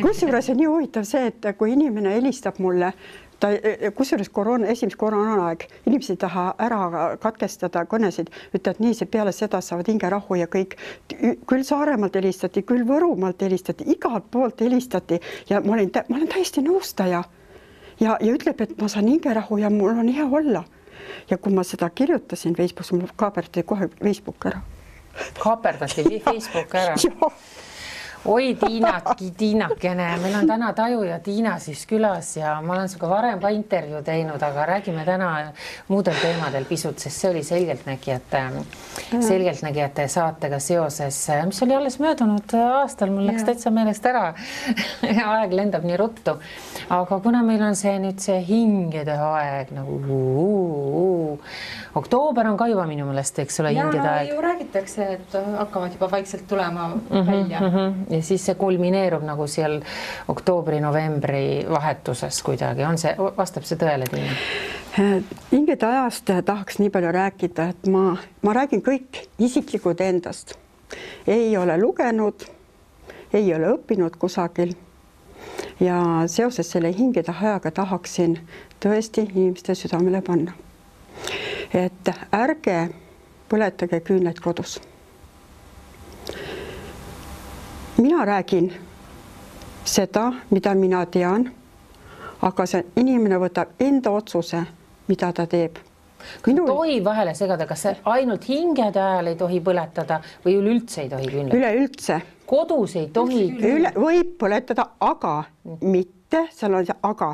Kusjuures on nii huvitav see, et kui inimene helistab mulle, kusjuures esimese koroonaaeg, inimesed ei taha ära katkestada kõnesid, ütlevad nii, see peale seda saavad hingerahu ja kõik. Küll Saaremaalt helistati, küll Võrumaalt helistati, igalt poolt helistati ja ma olen täiesti nõustaja ja ütleb, et ma saan hingerahu ja mul on hea olla. Ja kui ma seda kirjutasin Facebookis, mul kaaperdati kohe Facebook ära. Kaaperdati Facebook ära? Oi, Tiinakene, meil on täna Taju ja Tiina siis külas ja ma olen sinuga varem ka intervjuu teinud, aga räägime täna muudel teemadel pisut, sest see oli selgeltnägijate saatega seoses, mis oli alles möödunud aastal, mul läks täitsa meelest ära. Aeg lendab nii ruttu. Aga kuna meil on see nüüd see hingede aeg, nagu oktoober on ka juba minu meelest, eks ole, hingede aeg. Ja ju räägitakse, et hakkavad juba vaikselt tulema välja. Ja siis see kulmineerub nagu seal oktoobri-novembri vahetuses kuidagi. Vastab see tõele, Tiina? Hingede ajast tahaks nii palju rääkida, et ma räägin kõik isiklikud endast. Ei ole lugenud, ei ole õppinud kusagil. Ja seoses selle hingede ajaga tahaksin tõesti inimeste südamele panna. Et ärge põletage küünlaid kodus. Mina räägin seda, mida mina tean, aga see inimene võtab enda otsuse, mida ta teeb. Tohi vahele segada, kas ainult hingede ajal ei tohi põletada või üleüldse ei tohi küünlaid? Üleüldse. Kodus ei tohi? Võib põletada, aga mitte, seal on see aga.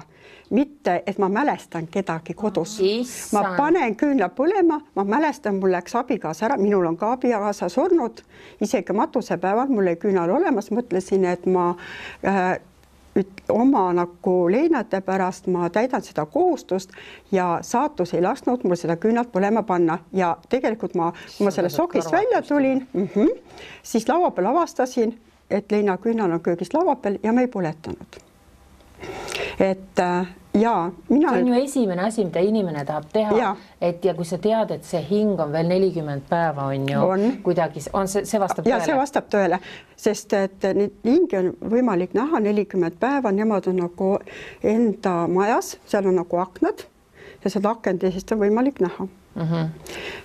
Mitte, et ma mälestan kedagi kodus. Ma panen küünla põlema, ma mälestan, mul läks abikaasa ära, minul on ka abikaasa surnud, isegi matusepäeval mul ei küünal olemas, mõtlesin, et ma oma nagu leinate pärast ma täidan seda kohustust ja saatus ei lasknud mul seda küünalt põlema panna ja tegelikult kui ma selle sokist välja tulin, siis laua peal avastasin, et leina küünal on köögis laua peal ja me ei põletanud. Et see on ju esimene asi, mida inimene tahab teha, ja kui sa tead, et see hing on veel 40 päeva on ju kuidagi, see vastab tõele? Ja see vastab tõele, sest et hingi on võimalik näha 40 päeva, nemad on nagu enda majas, seal on nagu aknad ja seda akendisest on võimalik näha.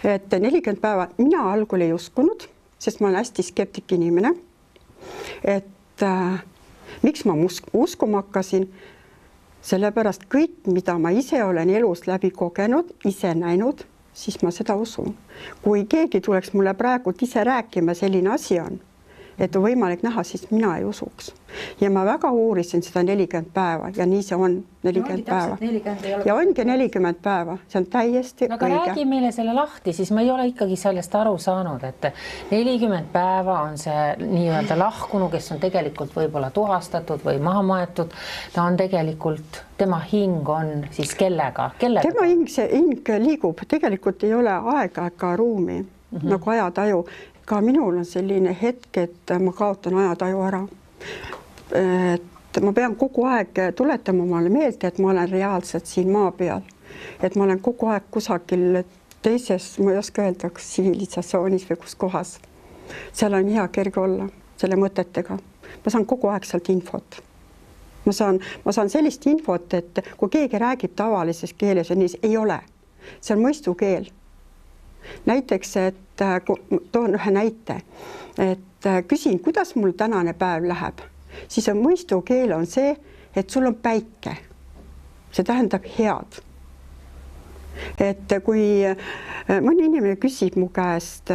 Et 40 päeva mina algul ei uskunud, sest ma olen hästi skeptik inimene, et miks ma uskuma hakkasin, sellepärast kõik, mida ma ise olen elus läbi kogenud, ise näinud, siis ma seda usun. Kui keegi tuleks mulle praegu ise rääkima, selline asi on, et on võimalik näha, siis mina ei usuks. Ja ma väga uurisin seda 40 päeva ja nii see on 40 päeva. Ja ongi 40 päeva, see on täiesti õige. Aga räägi meile selle lahti, siis ma ei ole ikkagi sellest aru saanud, et 40 päeva on see nii-öelda lahkunu, kes on tegelikult võib-olla tuhastatud või maha maetud. Ta on tegelikult, tema hing on siis kellega? Tema hing liigub, tegelikult ei ole aega ega ruumi, nagu ajataju. Ka minul on selline hetk, et ma kaotan ajataju ära. Et ma pean kogu aeg tuletama omale meelde, et ma olen reaalselt siin maa peal. Et ma olen kogu aeg kusagil teises, ma ei oska öelda, kas tsivilisatsioonis või kus kohas. Seal on hea kerge olla selle mõtetega. Ma saan kogu aeg sealt infot. Ma saan sellist infot, et kui keegi räägib tavalises keeles, ei ole. See on mõistukeel. Näiteks, et toon ühe näite, et küsin, kuidas mul tänane päev läheb, siis on mõistukeel on see, et sul on päike. See tähendab head. Et kui mõni inimene küsib mu käest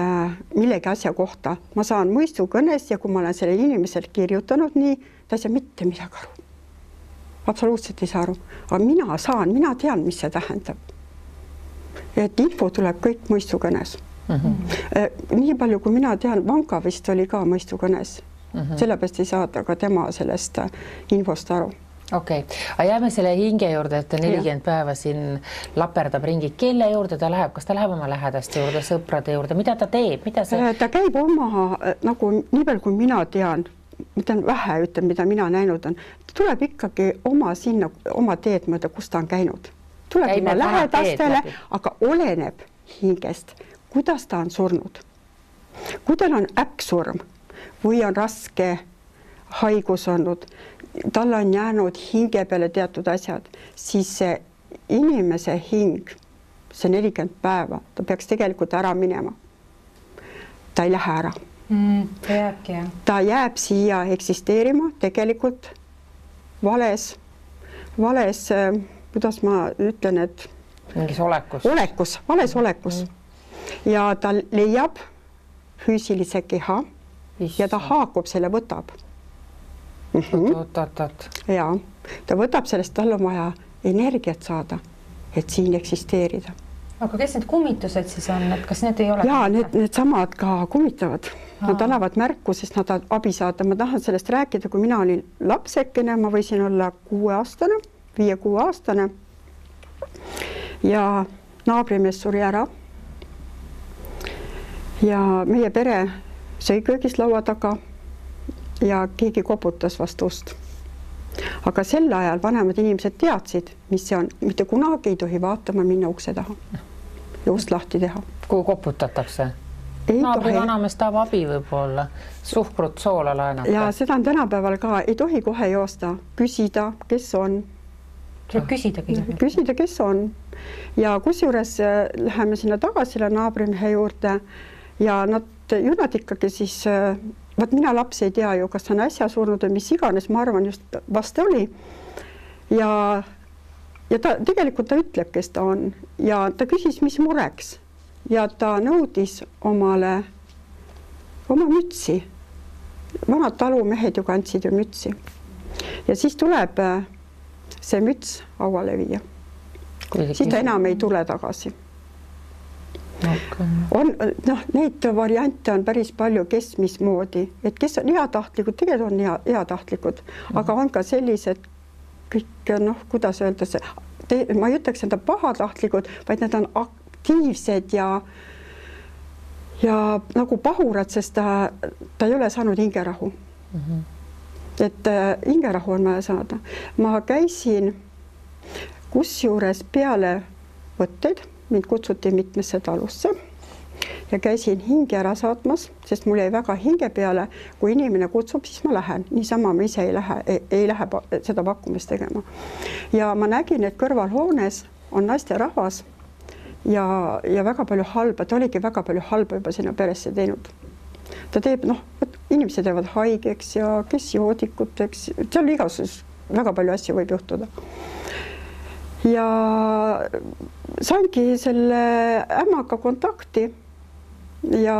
millegi asja kohta, ma saan mõistukõnes ja kui ma olen selle inimesel kirjutanud nii, ta ei saa mitte midagi aru. Absoluutselt ei saa aru. Aga mina tean, mis see tähendab. Et info tuleb kõik mõistukõnes. Nii palju, kui mina tean, Vanka vist oli ka mõistukõnes. Sellepärast ei saada ka tema sellest infost aru. Okei, aga jääme selle hinge juurde, et 40 päeva siin laperdab ringi. Kelle juurde ta läheb? Kas ta läheb oma lähedaste juurde, sõprade juurde? Mida ta teeb? Ta käib oma, nagu nii palju, kui mina tean, vähe ütlen, mida mina näinud on, ta tuleb ikkagi oma teed mööda, kus ta on käinud. Tuleb oma lähedastele, aga oleneb hingest, kuidas ta on surnud. Kui tal on äkksurm või on raske haigus olnud, tal on jäänud hinge peale teatud asjad, siis see inimese hing, see 40 päeva, ta peaks tegelikult ära minema. Ta ei lähe ära. Ta jääbki, jah. Ta jääb siia eksisteerima tegelikult vales, kuidas ma ütlen, et mingis vales olekus. Ja ta leiab füüsilise keha ja ta haakub selle, võtab. Ja ta võtab sellest, tal on vaja energiat saada, et siin eksisteerida. Aga kes need kummitused siis on, et kas need ei ole? Jaa, need samad ka kummitavad. Nad annavad märku, sest nad abi saada. Ma tahan sellest rääkida, kui mina olin lapsekene, ma võisin olla 5-aastane ja naabrimees suri ära. Ja meie pere sõi köögis laua taga ja keegi koputas vastu ust. Aga sel ajal vanemad inimesed teadsid, mis see on. Mitte kunagi ei tohi vaatama minna ukse taha ja ust lahti teha. Kui koputatakse? Naabri vanamees tahab abi võib-olla, suhkrut, soola laenata. Ja seda on tänapäeval ka, ei tohi kohe joosta, küsida, kes on. Tuleb küsida, kes on. Ja kusjuures läheme sinna tagasi naabrimehe juurde ja nad ikkagi siis, mina laps ei tea ju, kas on äsja surnud või mis iganes, ma arvan just vast oli. Ja ta tegelikult ta ütleb, kes ta on ja ta küsis, mis mureks ja ta nõudis oma mütsi. Vanad talumehed ju kandsid ju mütsi. Ja siis tuleb see müts hauale viia. Siis ta enam ei tule tagasi. Neid variante on päris palju, kes mismoodi, et kes on heatahtlikud, tegelikult on heatahtlikud, aga on ka sellised kõik, kuidas öelda see, ma ei ütleks enda pahatahtlikud, vaid need on aktiivsed ja nagu pahurad, sest ta ei ole saanud hingerahu. Et hingerahu on vaja saada. Ma käisin kusjuures peale võtteid, mind kutsuti mitmesse talusse ja käisin hinge ära saatmas, sest mul jäi väga hinge peale, kui inimene kutsub, siis ma lähen. Niisama ma ise ei lähe seda pakkumist tegema. Ja ma nägin, et kõrvalhoones on naiste rahvas ja väga palju halba, ta oligi väga palju halba juba sinna peresse teinud. Ta teeb, inimesed jäävad haigeks ja kes joodikuteks, seal igasus väga palju asju võib juhtuda. Ja saingi selle ämmaga kontakti ja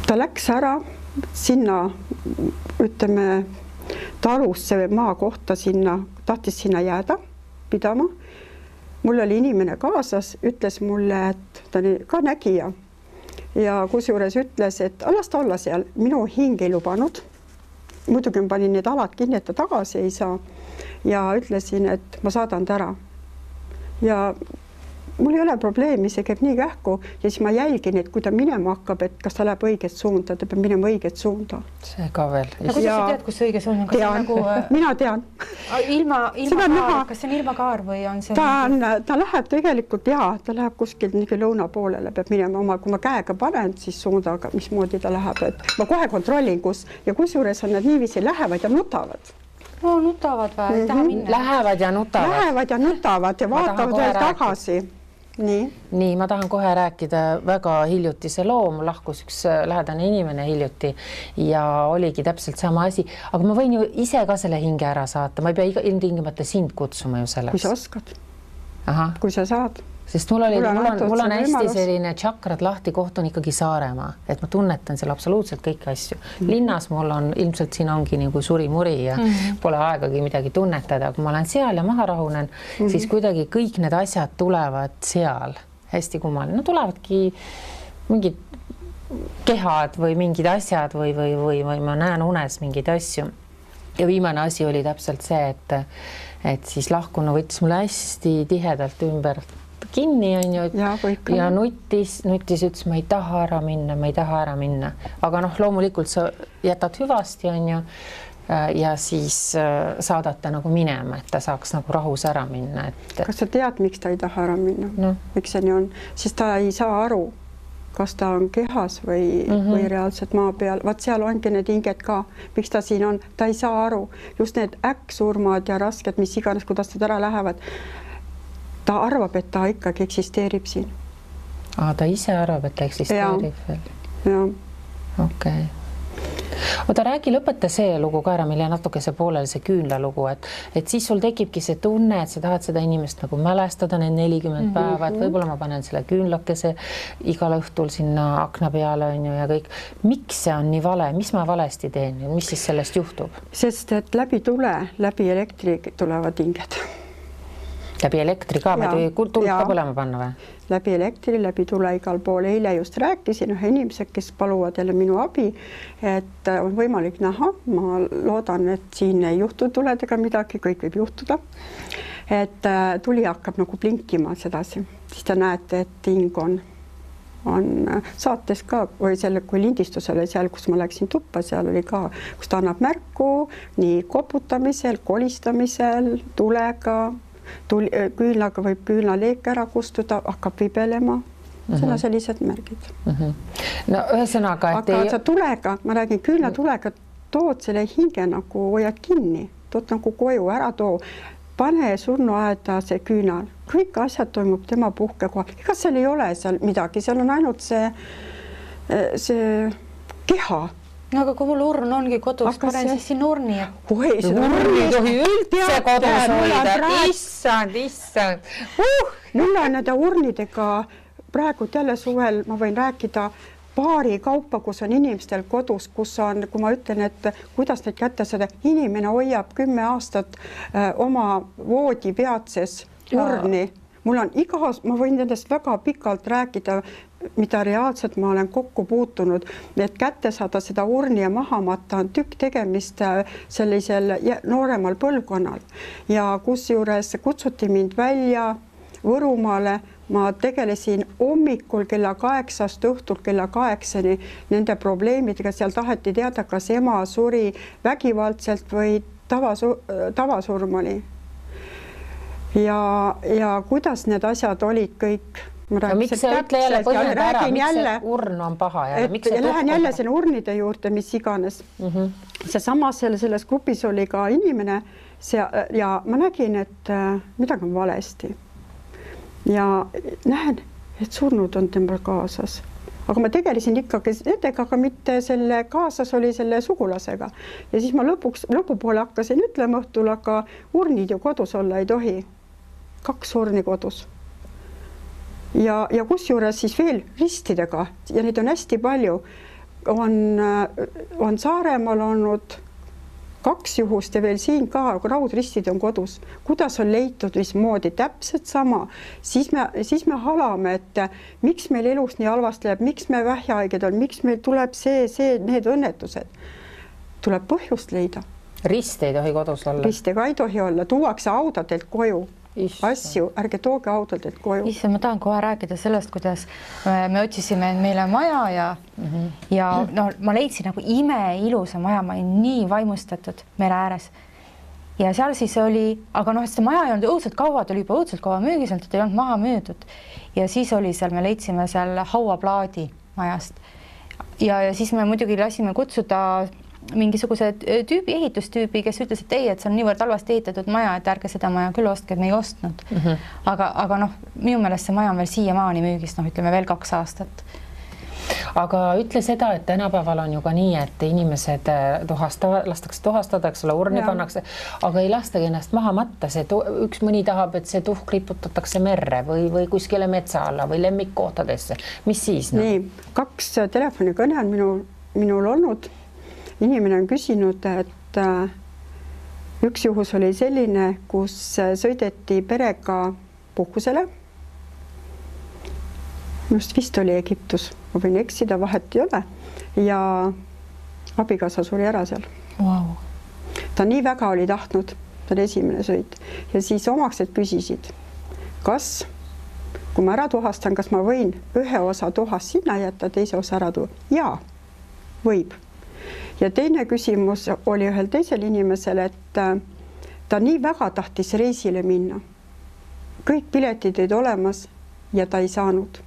ta läks ära sinna, ütleme, talusse või maa kohta sinna, tahtis sinna jääda pidama. Mul oli inimene kaasas, ütles mulle, et ta oli ka nägija ja kusjuures ütles, et las ta olla seal, minu hing ei lubanud. Muidugi ma panin need alad kinni, et ta tagasi ei saa ja ütlesin, et ma saadan ta ära. Ja mul ei ole probleemi, see käib nii kähku ja siis ma jälgin, et kui ta minema hakkab, et kas ta läheb õiget suunda, ta peab minema õiget suunda. See ka veel. Ja kuidas sa tead, kus õige suund on? Tean, mina tean. Ilma kaar, kas see on ilma kaar või on see? Ta läheb tegelikult, ta läheb kuskil lõuna poolele, peab minema oma, kui ma käega panen, siis suundaga, mismoodi ta läheb, et ma kohe kontrollin, kus ja kusjuures on nad niiviisi lähevad ja nutavad. Nutavad või? Lähevad ja nutavad ja vaatavad veel tagasi. Nii, ma tahan kohe rääkida väga hiljutise loo, mul lahkus üks lähedane inimene hiljuti ja oligi täpselt sama asi, aga ma võin ju ise ka selle hinge ära saata, ma ei pea ilmtingimata sind kutsuma ju selleks. Kui sa oskad, kui sa saad. Sest mul on hästi selline tšakrad lahti, koht on ikkagi Saaremaa, et ma tunnetan seal absoluutselt kõiki asju. Linnas mul on, ilmselt siin ongi nagu suri-muri ja pole aegagi midagi tunnetada, kui ma olen seal ja maha rahunen, siis kuidagi kõik need asjad tulevad seal hästi kummaline. Tulevadki mingid kehad või mingid asjad või ma näen unes mingeid asju. Ja viimane asi oli täpselt see, et siis lahkunu võttis mulle hästi tihedalt ümber kinni on ju ja nuttis, ütles, ma ei taha ära minna. Aga loomulikult sa jätad hüvasti on ju ja siis saadad ta nagu minema, et ta saaks nagu rahus ära minna. Kas sa tead, miks ta ei taha ära minna? Miks see nii on? Sest ta ei saa aru, kas ta on kehas või reaalselt maa peal. Vaat seal ongi need hinged ka, miks ta siin on, ta ei saa aru. Just need äkksurmad ja rasked, mis iganes, kuidas nad ära lähevad. Ta arvab, et ta ikkagi eksisteerib siin. Ta ise arvab, et ta eksisteerib veel? Jah. Okei. Oota, räägi lõpeta see lugu ka ära, mille natuke see poolel see küünla lugu, et siis sul tekibki see tunne, et sa tahad seda inimest nagu mälestada need 40 päeva, et võib-olla ma panen selle küünlakese igal õhtul sinna akna peale on ju ja kõik. Miks see on nii vale? Mis ma valesti teen? Mis siis sellest juhtub? Sest et läbi tule, läbi elektri tulevad hinged. Läbi elektri ka? Tuld ka põlema panna või? Läbi elektri, läbi tule igal pool. Eile just rääkisin ühe inimesed, kes paluvad jälle minu abi, et on võimalik näha. Ma loodan, et siin ei juhtu tuledega midagi, kõik võib juhtuda. Et tuli hakkab nagu blinkima sedasi. Siis te näete, et hing on saates ka või selle, kui lindistus oli seal, kus ma läksin tuppa, seal oli ka, kus ta annab märku nii koputamisel, kolistamisel, tulega, küünlaga võib küünlaleek ära kustuda, hakkab vibelema. Seda sellised märgid. No ühesõnaga, et aga sa tulega, ma räägin küünla tulega, tood selle hinge nagu hoiad kinni, tood nagu koju ära too, pane surnuaeda see küünal, kõik asjad toimub tema puhkekohal. Ega seal ei ole seal midagi, seal on ainult see keha. No aga kui mul urn ongi kodus, panen siis siin urni. Oi, seda urni ei tohi üldse kodus hoida. Issand. Mul on nende urnidega praegu jälle suvel, ma võin rääkida paari kaupa, kus on inimestel kodus, kus on, kui ma ütlen, et kuidas neid kätte saada, inimene hoiab 10 aastat oma voodi peatses urni. Mul on ma võin nendest väga pikalt rääkida, mida reaalselt ma olen kokku puutunud, et kätte saada seda urni ja maha matta on tükk tegemist sellisel nooremal põlvkonnal. Ja kusjuures kutsuti mind välja Võrumaale, ma tegelesin hommikul kella 8 õhtul kella 8 nende probleemidega, seal taheti teada, kas ema suri vägivaldselt või tavasurm oli. Ja kuidas need asjad olid kõik. Miks sa ütle jälle põhjenda ära, miks see urn on paha? Lähen jälle selle urnide juurde, mis iganes. Seesama selles grupis oli ka inimene ja ma nägin, et midagi on valesti. Ja näen, et surnud on temal kaasas. Aga ma tegelesin ikkagi nendega, aga mitte selle kaasas oli selle sugulasega. Ja siis ma lõpupoole hakkasin ütlema õhtul, aga urnid ju kodus olla ei tohi. 2 urni kodus. Ja kusjuures siis veel ristidega ja neid on hästi palju. On Saaremaal olnud 2 juhust ja veel siin ka raudristid on kodus. Kuidas on leitud, mismoodi täpselt sama. Siis me halame, et miks meil elus nii halvasti läheb, miks me vähjahaiged on, miks meil tuleb need õnnetused. Tuleb põhjust leida. Rist ei tohi kodus olla. Ristega ei tohi olla. Tuuakse audadelt koju. Asju, ärge tooge autodelt koju. Issa, ma tahan kohe rääkida sellest, kuidas me otsisime meile maja ja no, ma leidsin nagu imeilusa maja, ma olin nii vaimustatud mere ääres. Ja seal siis oli, aga noh, seda maja ei olnud õudselt kaua, ta oli juba õudselt kaua müügiselt, et ei olnud maha müüdud. Ja siis oli seal, me leidsime seal hauaplaadi majast. Ja siis me muidugi lasime kutsuda mingisuguse ehitustüübi, kes ütles, et ei, et see on niivõrd halvasti ehitatud maja, et ärge seda maja küll ostke, et me ei ostnud. Aga noh, minu meelest see maja on veel siiamaani müügis, noh, ütleme veel 2 aastat. Aga ütle seda, et tänapäeval on ju ka nii, et inimesed lastakse tuhastada, eks ole, urni pannakse, aga ei lastagi ennast maha matta. Üks mõni tahab, et see tuhk riputatakse merre või kuskile metsa alla või lemmikkohtadesse. Mis siis? Nii, 2 telefonikõne on minul olnud. Inimene on küsinud, et üks juhus oli selline, kus sõideti perega puhkusele. Just vist oli Egiptus, ma võin eksida, vahet ei ole. Ja abikaasa suri ära seal. Wow. Ta nii väga oli tahtnud, ta oli esimene sõit. Ja siis omaksed küsisid, kas, kui ma ära tuhastan, kas ma võin ühe osa tuhast sinna jätta, teise osa ära tuua? Jaa, võib. Ja teine küsimus oli ühel teisel inimesel, et ta nii väga tahtis reisile minna. Kõik piletid olid olemas ja ta ei saanud.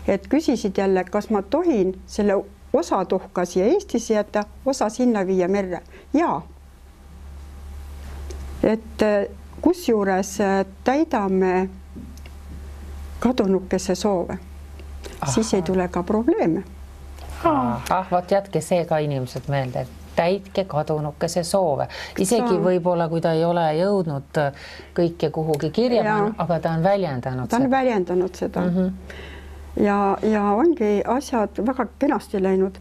et küsisid jälle, kas ma tohin selle osa tuhka siia Eestisse jätta, osa sinna viia merre. Jaa. Et kusjuures täidame kadunukese soove. Siis ei tule ka probleeme. Vot jätke see ka inimesed meelde, täitke kadunukese soove. Isegi võib-olla, kui ta ei ole jõudnud kõike kuhugi kirja, aga ta on väljendanud seda. Ta on väljendanud seda. Ja ongi asjad väga kenasti läinud.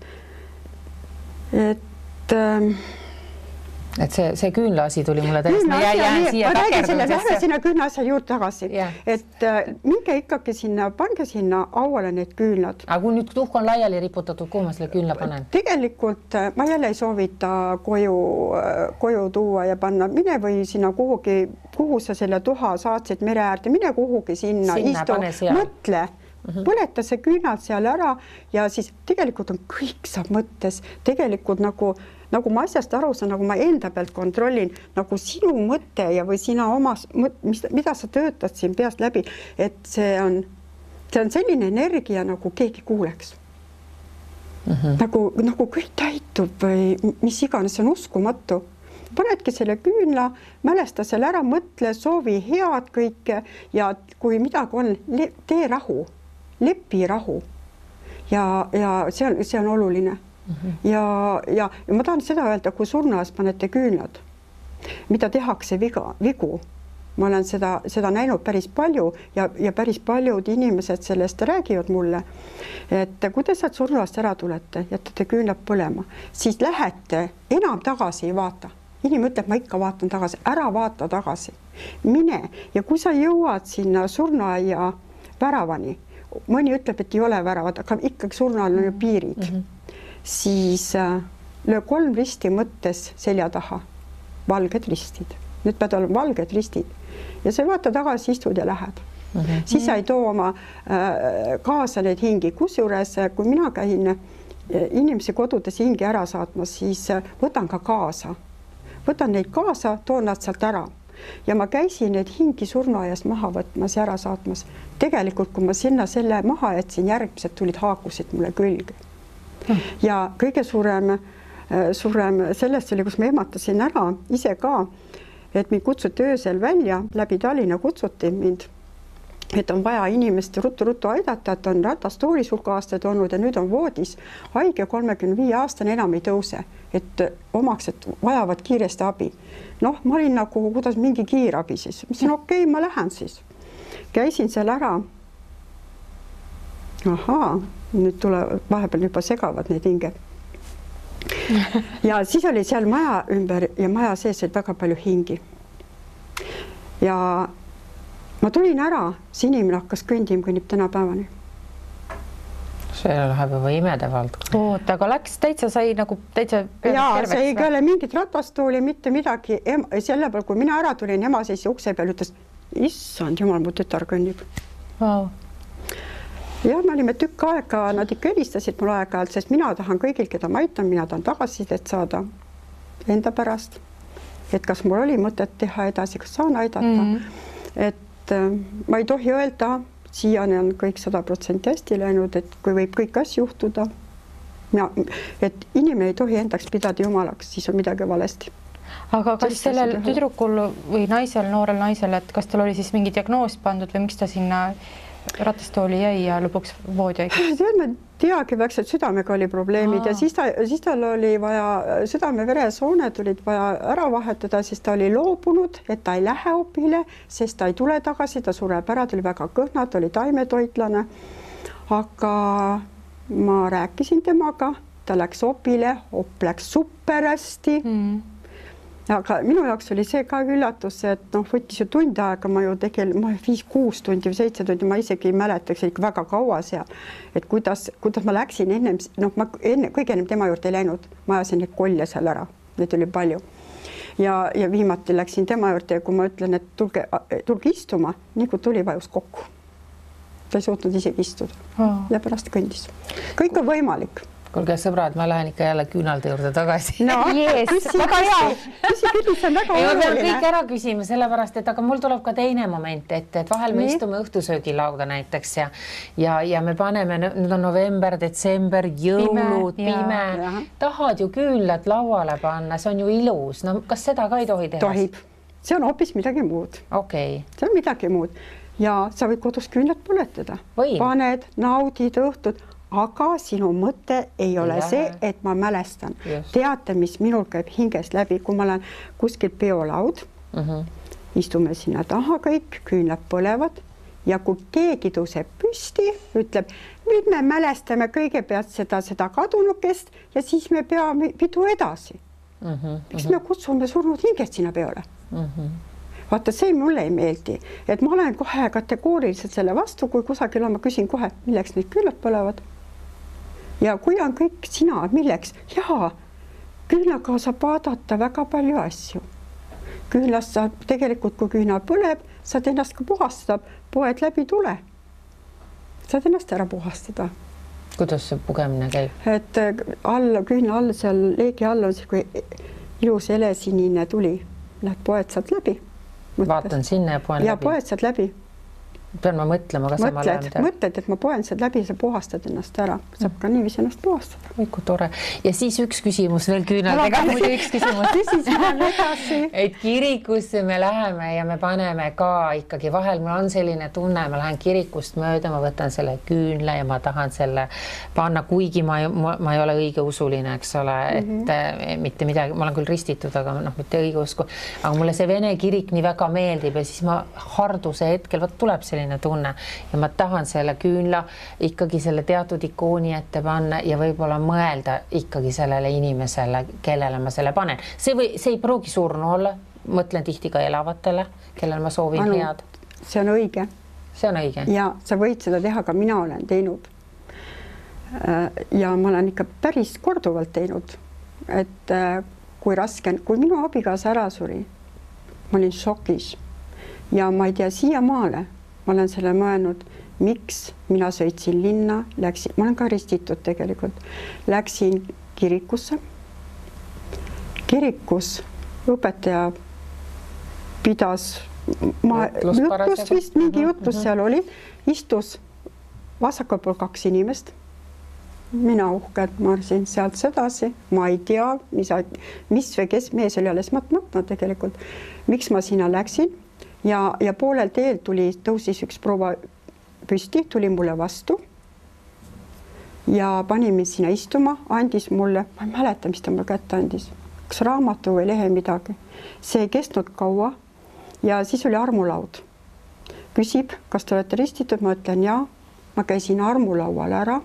Et see küünlaasi tuli mulle täiesti, ma jään siia lähme sinna küünlaasja juurde tagasi, et minge ikkagi sinna, pange sinna auale need küünlad. Aga kui nüüd tuhk on laiali riputatud, kuhu ma selle küünla panen? Tegelikult ma jälle ei soovita koju tuua ja panna, mine või sinna kuhugi, kuhu sa selle tuha saatsid mere äärde, mine kuhugi sinna istu, mõtle, põleta see küünad seal ära ja siis tegelikult on kõik saab mõttes, tegelikult nagu ma asjast aru saan, nagu ma enda pealt kontrollin, nagu sinu mõte ja või sina omas, mida sa töötad siin peast läbi, et see on selline energia, nagu keegi kuuleks. Nagu kõik täitub või mis iganes, see on uskumatu. Panedki selle küünla, mälesta selle ära, mõtle, soovi head kõike ja kui midagi on, tee rahu, lepi rahu ja see on oluline. Ja ma tahan seda öelda, kui surnuaias panete küünlad, mida tehakse vigu. Ma olen seda näinud päris palju ja päris paljud inimesed sellest räägivad mulle, et kui te sealt surnuaiast ära tulete, jätate küünlad põlema, siis lähete, enam tagasi ei vaata. Inimene ütleb, ma ikka vaatan tagasi, ära vaata tagasi. Mine ja kui sa jõuad sinna surnuaia väravani, mõni ütleb, et ei ole väravad, aga ikkagi surnuaial on ju piirid. Siis löö 3 risti mõttes selja taha, valged ristid. Nüüd pead olema valged ristid ja sa vaata tagasi, istud ja lähed. Siis sa ei too oma kaasa neid hingi. Kusjuures, kui mina käin inimesi kodudes hingi ära saatmas, siis võtan ka kaasa. Võtan neid kaasa, toon nad sealt ära. Ja ma käisin neid hingi surnuaiast maha võtmas ja ära saatmas. Tegelikult, kui ma sinna selle maha jätsin, järgmised tulid haakusid mulle külge. Ja kõige suurem sellest oli, kus ma ehmatasin ära ise ka, et mind kutsuti öösel välja, läbi Tallinna kutsuti mind, et on vaja inimest ruttu aidata, et on ratastoolis hulk aastaid olnud ja nüüd on voodis haige 35-aastane, enam ei tõuse, et omaksed vajavad kiiresti abi. Noh, ma olin nagu, kuidas mingi kiirabi siis. Ma ütlesin, okei, ma lähen siis. Käisin seal ära. Nüüd vahepeal juba segavad need hinged. Ja siis oli seal maja ümber ja maja sees oli väga palju hingi. Ja ma tulin ära, see inimene hakkas kõnnib tänapäevani. See läheb juba imede vald. Oot, aga läks täitsa sai nagu täitsa terveks. See ei ole mingit ratastooli, mitte midagi. Selle peal, kui mina ära tulin, ema seis ukse peal ütles, issand jumal, mu tütar kõnnib. Wow. Ja me olime tükk aega, nad ikka helistasid mul aeg-ajalt, sest mina tahan kõigil, keda ma aitan, mina tahan tagasisidet saada enda pärast, et kas mul oli mõtet teha edasi, kas saan aidata. Et ma ei tohi öelda, siiani on kõik 100% hästi läinud, et kui võib kõik asju juhtuda, et inimene ei tohi endaks pidada jumalaks, siis on midagi valesti. Aga kas sellel tüdrukul või naisel, noorel naisel, et kas tal oli siis mingi diagnoos pandud või miks ta sinna ratastooli jäi ja lõpuks voodi haigeks? Ma teagi väikselt, südamega oli probleemid ja siis tal oli vaja, südame-veresooned olid vaja ära vahetada, siis ta oli loobunud, et ta ei lähe opile, sest ta ei tule tagasi, ta sureb ära, ta oli väga kõhna, ta oli taimetoitlane. Aga ma rääkisin temaga, ta läks opile, op läks super hästi. Aga minu jaoks oli see ka üllatus, et võttis ju tund aega, ma ju 5-6 tundi või 7 tundi, ma isegi ei mäletaks ikka väga kaua seal, et kuidas ma läksin ennem, ma kõige ennem tema juurde ei läinud, ma ajasin neid kolle seal ära, neid oli palju. Ja viimati läksin tema juurde ja kui ma ütlen, et tulge istuma, nii kui tuli, vajus kokku. Ta ei suutnud isegi istuda ja pärast kõndis. Kõik on võimalik. Kuulge sõbrad, ma lähen ikka jälle küünalde juurde tagasi. No, väga hea. Küsi, see on väga oluline. Ma pean oluline. kõik ära küsima, sellepärast, et aga mul tuleb ka teine moment, et vahel me istume õhtusöögilauda näiteks ja me paneme, nüüd on november, detsember, jõulud, pime. Tahad ju küünlad lauale panna, see on ju ilus. No kas seda ka ei tohi teha? Tohib. See on hoopis midagi muud. Okay. See on midagi muud. Ja sa võid kodus küünlad põletada. Paned, naudid õhtud. Aga sinu mõte ei ole see, et ma mälestan. Teate, mis minul käib hingest läbi, kui ma olen kuskil peolaud, istume sinna taha kõik, küünlad põlevad ja kui keegi tõuseb püsti, ütleb, nüüd me mälestame kõigepealt seda kadunukest ja siis me peame pidu edasi. Eks me kutsume surnud hingest sinna peole. Vaata, see mulle ei meeldi, et ma olen kohe kategooriliselt selle vastu, kui kusagil on, ma küsin kohe, milleks need küünlad põlevad. Ja kui on kõik sina, milleks? Jaa, küünlaga saab vaadata väga palju asju. Küünlast saab tegelikult, kui küünal põleb, saad ennast ka puhastada, poed läbi tule. Saad ennast ära puhastada. Kuidas see pugemine käib? Et küünla all, seal leegi all on see, kui ilus helesinine tuli. Lähed poed saad läbi. Vaatan sinna ja poen läbi. Ja poed saad läbi. Pean ma mõtlema, kas ma lähen. Mõtled, et ma poen saad läbi, sa puhastad ennast ära. Saab ka niiviisi ennast puhastada. Oi, kui tore. Ja siis üks küsimus veel küünaldega. Üks küsimus. Et kirikusse me läheme ja me paneme ka ikkagi vahel, mul on selline tunne, ma lähen kirikust mööda, ma võtan selle küünla ja ma tahan selle panna, kuigi ma ei ole õige usuline, eks ole, et mitte midagi, ma olen küll ristitud, aga mitte õige usku. Aga mulle see vene kirik nii väga meeldib ja siis ma harduse hetkel, tuleb selline tunne ja ma tahan selle küünla ikkagi selle teatud ikooni ette panna ja võib-olla mõelda ikkagi sellele inimesele, kellele ma selle panen. See ei pruugi surnu olla, mõtlen tihti ka elavatele, kellele ma soovin head. See on õige. See on õige. Ja sa võid seda teha, ka mina olen teinud. Ja ma olen ikka päris korduvalt teinud, et kui minu abigaasa ära suri, ma olin šokis ja ma ei tea siiamaale, ma olen selle mõelnud, miks mina sõitsin linna, ma olen ka ristitud tegelikult, läksin kirikusse. Kirikus õpetaja pidas jutlust vist, mingi jutlus seal oli, istus vasakul pool 2 inimest. Mina uhkelt marsin sealt sedasi, ma ei tea, mis või kes mees oli alles matmatna tegelikult, miks ma sinna läksin. Ja poolel teel tõusis üks proua püsti, tuli mulle vastu ja pani mind sinna istuma, andis mulle, ma ei mäleta, mis ta mulle kätte andis, kas raamatu või lehe midagi. See ei kestnud kaua ja siis oli armulaud. Küsib, kas te olete ristitud, ma ütlen jaa, ma käisin armulaual ära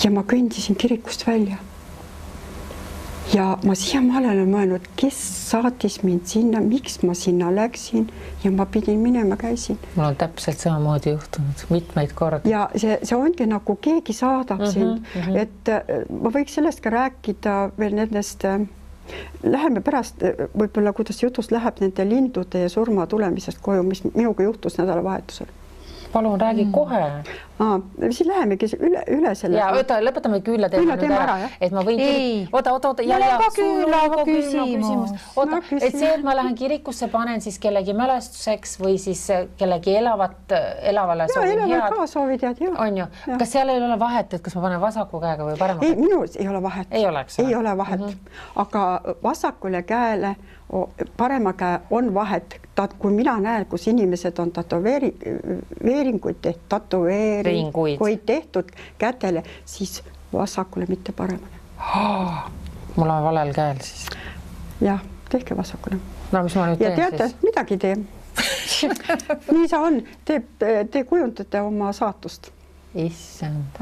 ja ma kõndisin kirikust välja. Ja ma siiamaale olen mõelnud, kes saatis mind sinna, miks ma sinna läksin ja ma pidin minema, käisin. Mul on täpselt samamoodi juhtunud mitmeid kordi. Ja see ongi nagu keegi saadab sind, et ma võiks sellest ka rääkida veel nendest, läheme pärast võib-olla, kuidas jutust läheb nende lindude ja surma tulemisest koju, mis minuga juhtus nädalavahetusel. Palun räägi kohe. Siis lähemegi üle selle. Ja lõpetame küünla teema nüüd ära, et ma võin... Oota. Mul on ka küünla küsimus. Oota, et see, et ma lähen kirikusse, panen siis kellegi mälestuseks või siis kellegi elavale soovin head. Ka soovid head, jah. On ju. Kas seal ei ole vahet, et kas ma panen vasaku käega või parema käega? Ei, minus ei ole vahet. Ei ole vahet. Aga vasakule käele, parema käe on vahet. Kui mina näen, kus inimesed on tatoveeringuid tehtud kätele, siis vasakule mitte paremale. Mul on valel käel siis. Jah, tehke vasakule. No mis ma nüüd teen siis? Ja teate, midagi tee. Nii sa on. Te kujundate oma saatust. Issand.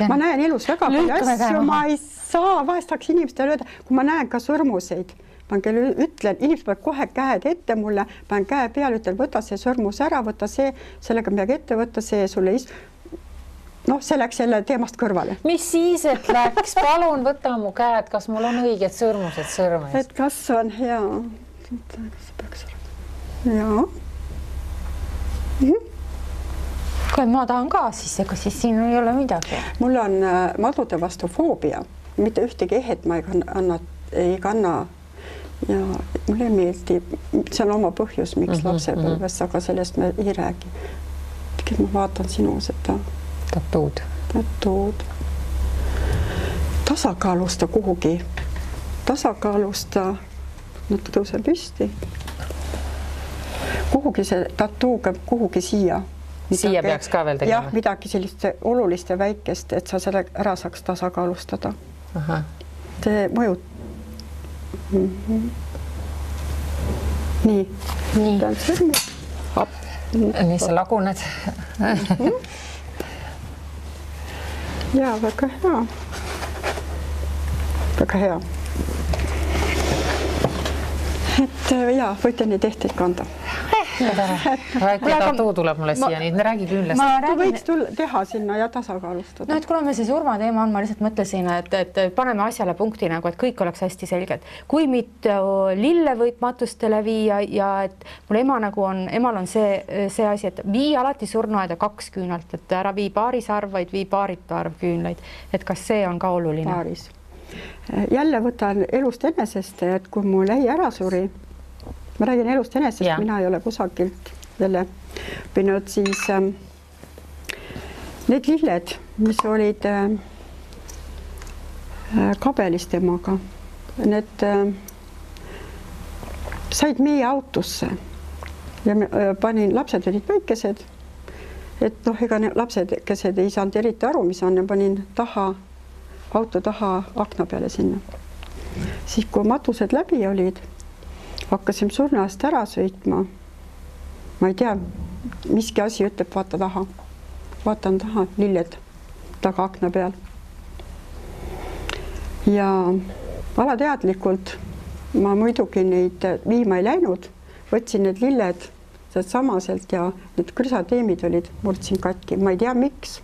Ma näen elus väga palju asju, ma ei saa, vahest tahaks inimestele öelda, kui ma näen ka sõrmuseid. Ma ütlen, inimesed peavad kohe käed ette mulle, panen käe peale, ütlen, võta see sõrmus ära, võta see, sellega midagi ette võtta, see sulle see läks selle teemast kõrvale. Mis siis, et läks? Palun võta mu käed, kas mul on õiged sõrmused sõrmes? Et kas on hea? Jaa. kui ma tahan ka, siis ega siis siin ei ole midagi. Mul on madude vastu foobia, mitte ühtegi ehet ma ei kanna ja mulle meeldib, see on oma põhjus, miks lapsepõlves, aga sellest me ei räägi. Ma vaatan sinu seda tatuud. Tasakaalusta kuhugi, nüüd tõuse püsti. Kuhugi see tatuuga, kuhugi siia. Siia peaks ka veel tegema? Jah, midagi sellist olulist ja väikest, et sa selle ära saaks tasakaalustada. Aha. See mõjub. Nii. Nii sa laguned. Jaa, väga hea. Väga hea. Et jaa, võite neid ehteid kanda. Väike tatuu tuleb mulle siia, nii räägi küllest. Võiks teha sinna ja tasakaalustada. No, et kuna me see surmateema on, ma lihtsalt mõtlesin, et paneme asjale punkti nagu, et kõik oleks hästi selged. Kui mitu lille võib matustele viia ja et mul emal on see asi, et vii alati surnuaeda 2 küünalt, et ära vii paaris arv, vaid vii paaritu arv küünlaid. Et kas see on ka oluline? Paaris. Jälle võtan elust enesest, et kui mul ei ära suri, ma räägin elust enesest, mina ei ole kusagilt jälle õppinud, siis need lilled, mis olid kabelis temaga, need said meie autosse ja panin, lapsed olid väikesed, et ega lapsedkesed ei saanud eriti aru, mis on, ja panin auto taha akna peale sinna. Siis kui matused läbi olid, hakkasime surnuaast ära sõitma. Ma ei tea, miski asi ütleb, vaata taha. Vaatan taha, lilled taga akna peal. Ja alateadlikult ma muidugi neid viima ei läinud, võtsin need lilled samaselt ja need krüsateemid olid, murdsin katki. Ma ei tea, miks,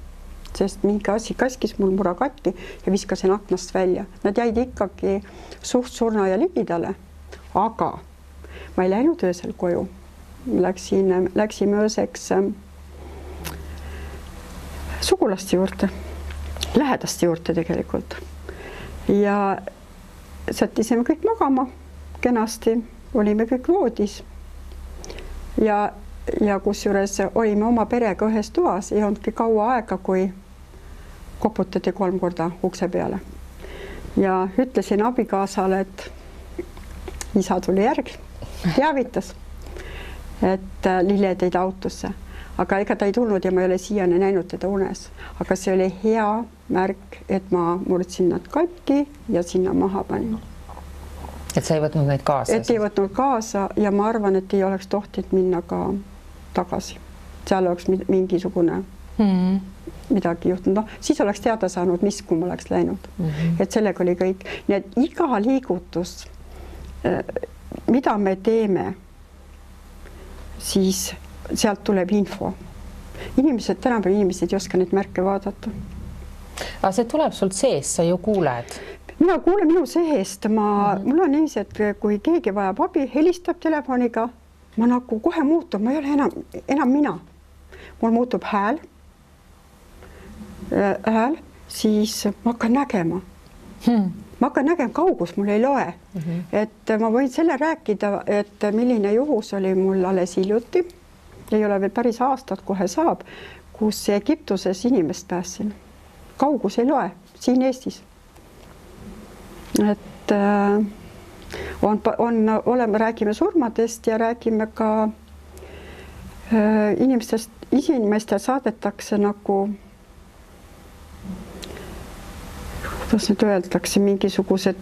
sest mingi asi kaskis mul mura katki ja viskasin aknast välja. Nad jäid ikkagi suht surna ja ligidale, aga ma ei läinud öösel koju. Läksime ööseks sugulaste juurde, lähedaste juurde tegelikult. Ja sättisime kõik magama kenasti, olime kõik voodis. Ja kusjuures olime oma perega ühes toas, ei olnudki kaua aega, kui koputati 3 korda ukse peale. Ja ütlesin abikaasale, et isa tuli järg. Teavitas, et lilled jäid autosse, aga ega ta ei tulnud ja ma ei ole siiani näinud teda unes. Aga see oli hea märk, et ma murdsin nad katki ja sinna maha panin. Et sa ei võtnud neid kaasa? Et ei võtnud kaasa ja ma arvan, et ei oleks tohtinud minna ka tagasi. Seal oleks mingisugune midagi juhtunud. No, siis oleks teada saanud, mis kui ma oleks läinud. Et sellega oli kõik. Nii et iga liigutus mida me teeme, siis sealt tuleb info. Tänapäeval inimesed ei oska neid märke vaadata. Aga see tuleb sult sees, sa ju kuuled. Mina kuulen minu seest. Mul on niiviisi, et kui keegi vajab abi, helistab telefoniga, ma nagu kohe muutub, ma ei ole enam mina. Mul muutub hääl, siis ma hakkan nägema. Ma hakkan nägema, kaugus mul ei loe. Et ma võin selle rääkida, et milline juhus oli mul alles hiljuti. Ei ole veel päris aastat, kohe saab, kus Egiptuses inimest päässin. Kaugus ei loe, siin Eestis. Et räägime surmadest ja räägime ka inimestest saadetakse nagu kuidas nüüd öeldakse, mingisugused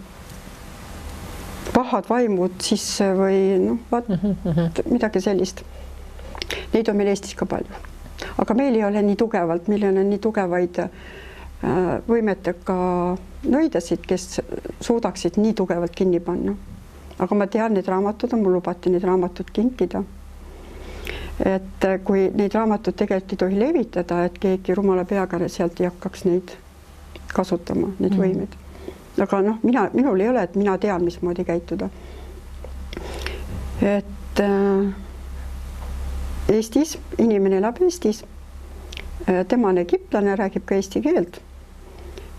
pahad vaimud sisse või midagi sellist. Neid on meil Eestis ka palju. Aga meil ei ole nii tugevalt, meil on nii tugevaid võimetega nõidasid, kes suudaksid nii tugevalt kinni panna. Aga ma tean, need raamatud on, mul lubati need raamatud kinkida. Et kui neid raamatud tegelikult ei tohi levitada, et keegi rumala peaga sealt ei hakkaks neid kasutama, need võimed. Aga minul ei ole, et mina tean, mismoodi käituda. Et Eestis, inimene elab Eestis tema on egiptlane, räägib ka eesti keelt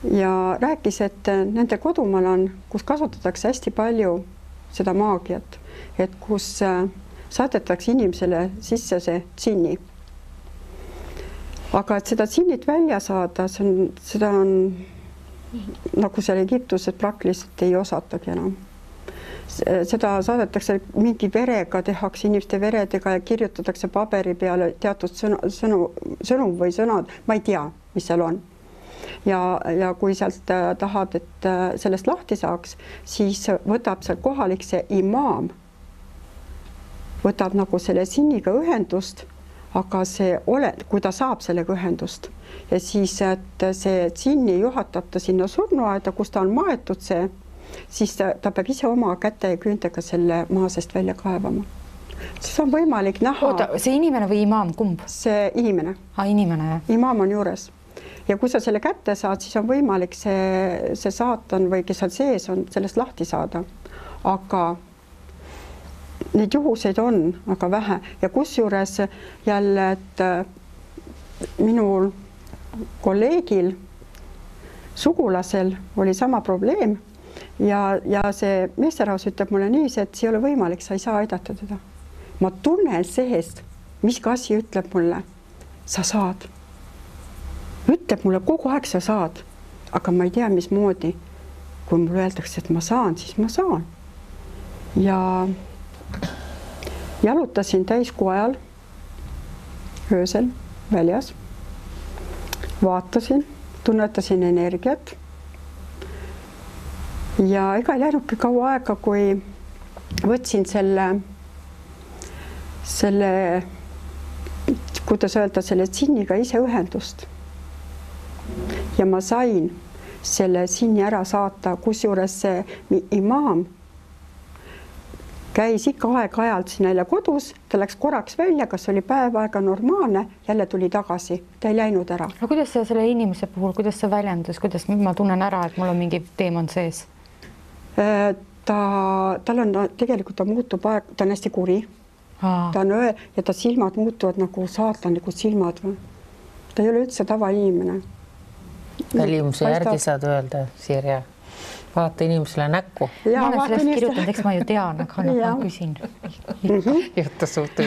ja rääkis, et nende kodumaal on, kus kasutatakse hästi palju seda maagiat, et kus saadetakse inimesele sisse see džinni. Aga et seda džinnit välja saada, seda on nagu seal Egiptuses praktiliselt ei osatagi enam. Seda saadetakse mingi verega, tehakse inimeste veredega ja kirjutatakse paberi peale teatud sõnum või sõnad, ma ei tea, mis seal on. Ja kui sealt tahad, et sellest lahti saaks, siis võtab seal kohalik see imaam, võtab nagu selle džinniga ühendust, aga kui ta saab sellega ühendust ja siis, et see džinni juhatab ta sinna surnuaeda, kus ta on maetud siis ta peab ise oma käte ja küüntega selle maa seest välja kaevama. Siis on võimalik näha... Oota, see inimene või imaam, kumb? See inimene. Inimene, jah. Imaam on juures. Ja kui sa selle kätte saad, siis on võimalik see saatan või kes seal sees on, sellest lahti saada. Aga neid juhuseid on aga vähe. Ja kusjuures jälle, et minul kolleegil, sugulasel oli sama probleem. Ja see meesterahvas ütleb mulle nii, et see ei ole võimalik, sa ei saa aidata teda. Ma tunnen seest, mis asi ütleb mulle, sa saad. Ütleb mulle kogu aeg sa saad, aga ma ei tea, mismoodi. Kui mulle öeldakse, et ma saan, siis ma saan. Ja jalutasin täiskuu ajal öösel väljas, vaatasin, tunnetasin energiat. Ja ega ei läinudki kaua aega, kui võtsin selle, kuidas öelda, selle džinniga ise ühendust. Ja ma sain selle džinni ära saata, kusjuures see imaam käis ikka aeg-ajalt siin jälle kodus, ta läks korraks välja, kas oli päev aega normaalne, jälle tuli tagasi, ta ei läinud ära. No kuidas see selle inimese puhul, kuidas see väljendus, kuidas ma tunnen ära, et mul on mingi teemant sees? Tal on tegelikult, ta muutub aeg, ta on hästi kuri. Ta on ja ta silmad muutuvad nagu saatanlikud silmad. Ta ei ole üldse tavainimene. Välimuse järgi saad öelda, Sirje. Vaata inimesele näkku. Ma olen sellest kirjutanud, eks ma ju tean, aga ma küsin. Juttu suhtu.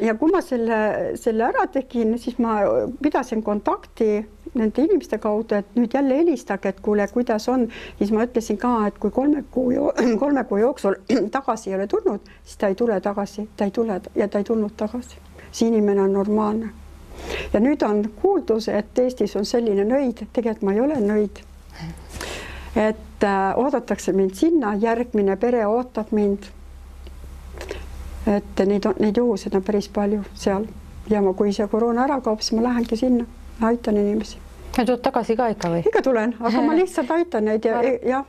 Ja kui ma selle ära tegin, siis ma pidasin kontakti nende inimeste kaudu, et nüüd jälle helistage, et kuule, kuidas on. Siis ma ütlesin ka, et kui 3 kuu jooksul tagasi ei ole tulnud, siis ta ei tule tagasi, ta ei tule ja ta ei tulnud tagasi. See inimene on normaalne. Ja nüüd on kuuldus, et Eestis on selline nõid, tegelikult ma ei ole nõid. Et oodatakse mind sinna, järgmine pere ootab mind. Et neid juhuseid on päris palju seal. Ja kui see koroona ära kaob, siis ma lähengi sinna, aitan inimesi. Ja tuud tagasi ka ikka või? Ikka tulen, aga ma lihtsalt aitan neid ja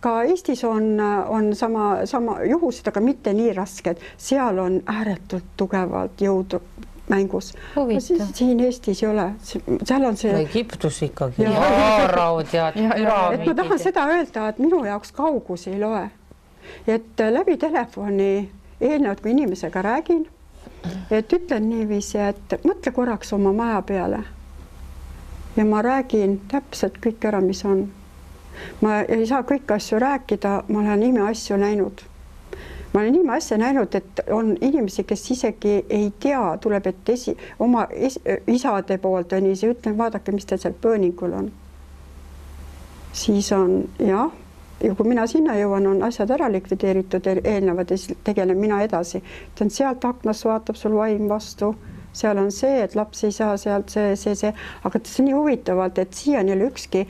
ka Eestis on sama juhused, aga mitte nii rasked. Seal on ääretult tugevalt jõudu mängus. Siin Eestis ei ole. Seal on see... Egiptus ikkagi. Haaraud ja püramiidid. Ma tahan seda öelda, et minu jaoks kaugus ei loe. Et läbi telefoni eelnevalt, kui inimesega räägin, et ütlen niiviisi, et mõtle korraks oma maja peale. Ja ma räägin täpselt kõik ära, mis on. Ma ei saa kõiki asju rääkida, ma olen ime asju näinud. Ma olen ime asja näinud, et on inimesi, kes isegi ei tea, tuleb, et oma isade poolt on nii, ütlen, vaadake, mis teil seal pööningul on. Siis on, jah, ja kui mina sinna jõuan, on asjad ära likvideeritud eelnevad ja siis tegelen mina edasi. Sealt aknast vaatab sul vaim vastu. Seal on see, et laps ei saa sealt see. Aga see on nii huvitavalt, et siiani ei ole ükski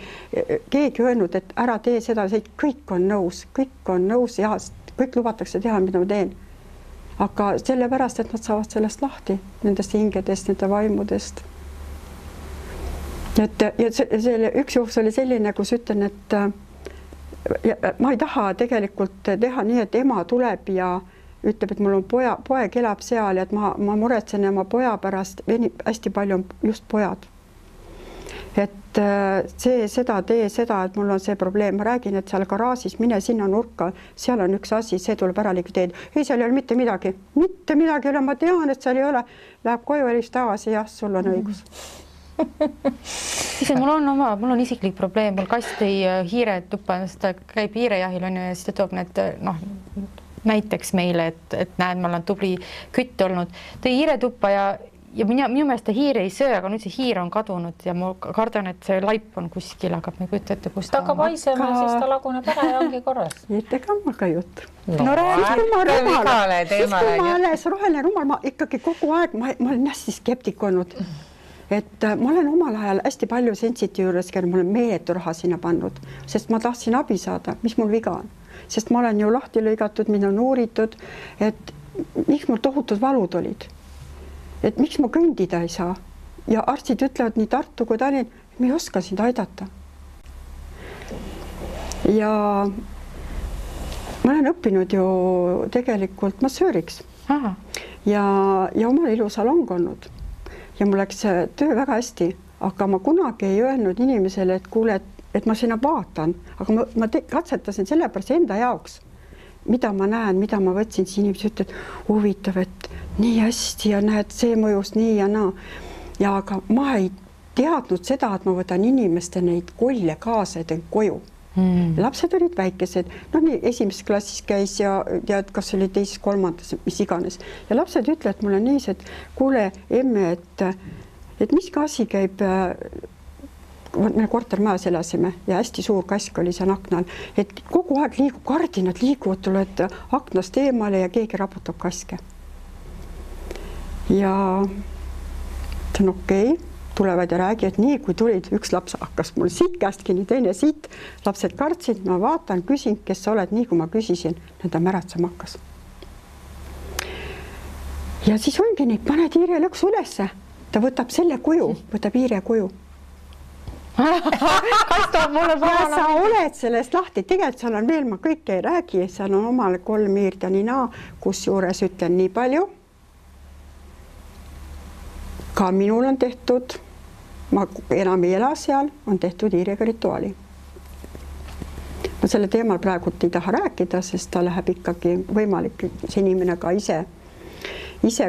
keegi öelnud, et ära tee seda, kõik on nõus ja kõik lubatakse teha, mida ma teen. Aga sellepärast, et nad saavad sellest lahti, nendest hingedest, nende vaimudest. Ja üks juhus oli selline, kus ütlen, et ma ei taha tegelikult teha nii, et ema tuleb ja ütleb, et mul on poeg elab seal ja et ma muretsen oma poja pärast, hästi palju on just pojad. Et seda, tee seda, et mul on see probleem, ma räägin, et seal garaažis mine sinna nurka, seal on üks asi, see tuleb ära likvideerida. Ei, seal ei ole mitte midagi ei ole, ma tean, et seal ei ole. Läheb koju ja tagasi, jah, sul on õigus. Siis mul on isiklik probleem, mul kast tõi hiire tuppa, ta käib hiirejahil on ju ja siis ta toob need näiteks meile, et näed, ma olen tubli kütt olnud. Tõi hiire tuppa ja minu meelest ta hiir ei söö, aga nüüd see hiir on kadunud ja ma kardan, et see laip on kuskil, aga ma ei kujuta ette, kus ta hakkab haisema, siis ta laguneb ära ja ongi korras. Ega ma ka jutt. No räägi, ma alles roheline rumal, ma ikkagi kogu aeg, ma olen hästi skeptik olnud. Et ma olen omal ajal hästi palju Sensiti juures, kelle ma olen meeletu raha sinna pannud, sest ma tahtsin abi saada, mis mul viga on. Sest ma olen ju lahti lõigatud, mind on uuritud, et miks mul tohutud valud olid. Et miks ma kõndida ei saa ja arstid ütlevad nii Tartu kui Tallinn, et me ei oska sind aidata. Ja ma olen õppinud ju tegelikult massööriks ja omal ilusalong olnud ja mul läks töö väga hästi, aga ma kunagi ei öelnud inimesele, et kuule, et ma sinna vaatan, aga ma katsetasin sellepärast enda jaoks, mida ma näen, mida ma võtsin, siis inimesed ütlevad, huvitav, et nii hästi ja näed, see mõjus nii ja naa. Ja aga ma ei teadnud seda, et ma võtan inimeste neid kolle kaasa ja teen koju. Lapsed olid väikesed, nii esimeses klassis käis ja kas oli teises, kolmandas, mis iganes. Ja lapsed ütlevad mulle nii, et kuule, emme, et mis asi käib, me kortermajas elasime ja hästi suur kask oli seal aknal, et kogu aeg liigub, kardinad liiguvad, tuled aknast eemale ja keegi raputab kaske. Ja ta on okei, tulevad ja räägivad nii, kui tulid, üks laps hakkas mul siit käest kinni, teine siit, lapsed kartsid, ma vaatan, küsin, kes sa oled, nii kui ma küsisin, ta märatsema hakkas. Ja siis ongi nii, paned hiire lõksu ülesse, ta võtab selle kuju, võtab hiire kuju. Ja sa oled sellest lahti, tegelikult seal on veel, ma kõike ei räägi, seal on omale 3 hiirt ja nii naa, kus juures ütlen nii palju. Ka minul on tehtud, ma enam ei ela seal, on tehtud hiirega rituaali. Ma selle teemal praegult ei taha rääkida, sest ta läheb ikkagi võimalik, see inimene ka ise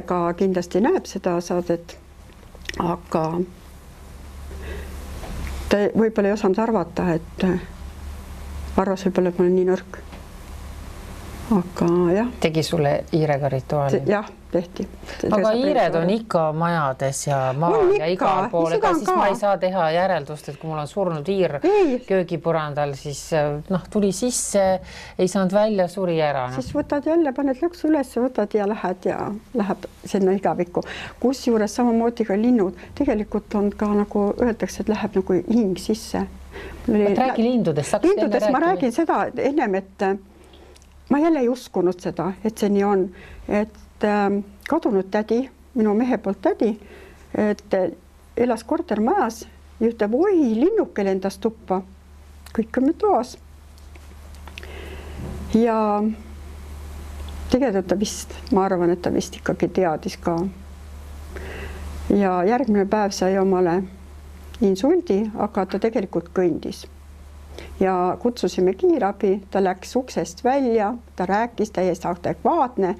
ka kindlasti näeb seda saadet, aga ta võib-olla ei osanud arvata, et arvas võib-olla, et ma olen nii nõrk. Aga jah. Tegi sulle hiirega rituaali? Jah, tehti. Aga hiired on ikka majades ja maal ja igal pool, ega siis ma ei saa teha järeldust, et kui mul on surnud hiir köögipurandal, siis tuli sisse, ei saanud välja, suri ära. Siis võtad jälle, paned lõksu üles, võtad ja läheb sinna igavikku. Kus juures samamoodi ka linnud, tegelikult on ka nagu öeldakse, et läheb nagu hing sisse. Räägi lindudest. Lindudest ma räägin seda ennem, et ma jälle ei uskunud seda, et see nii on, et kadunud tädi, minu mehe poolt tädi, et elas kortermajas ja ütleb, oi, linnuke lendas tuppa, kõik on toas. Ja tegelikult ta vist, ma arvan, et ta vist ikkagi teadis ka. Ja järgmine päev sai omale insuldi, aga ta tegelikult kõndis. Ja kutsusime kiirabi, ta läks uksest välja, ta rääkis täiesti adekvaatne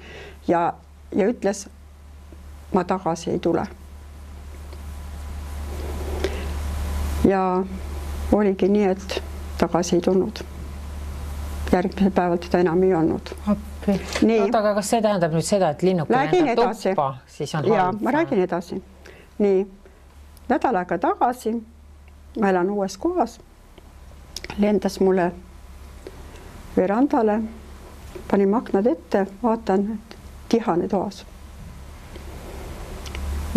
ja ütles, ma tagasi ei tule. Ja oligi nii, et tagasi ei tulnud. Järgmisel päeval teda enam ei olnud. Aga kas see tähendab nüüd seda, et linnuke lendab tuppa, siis on halb? Ja, ma räägin edasi. Nii, nädal aega tagasi, ma elan uues kohas, lendas mulle verandale, panin aknad ette, vaatan, et tihane toas.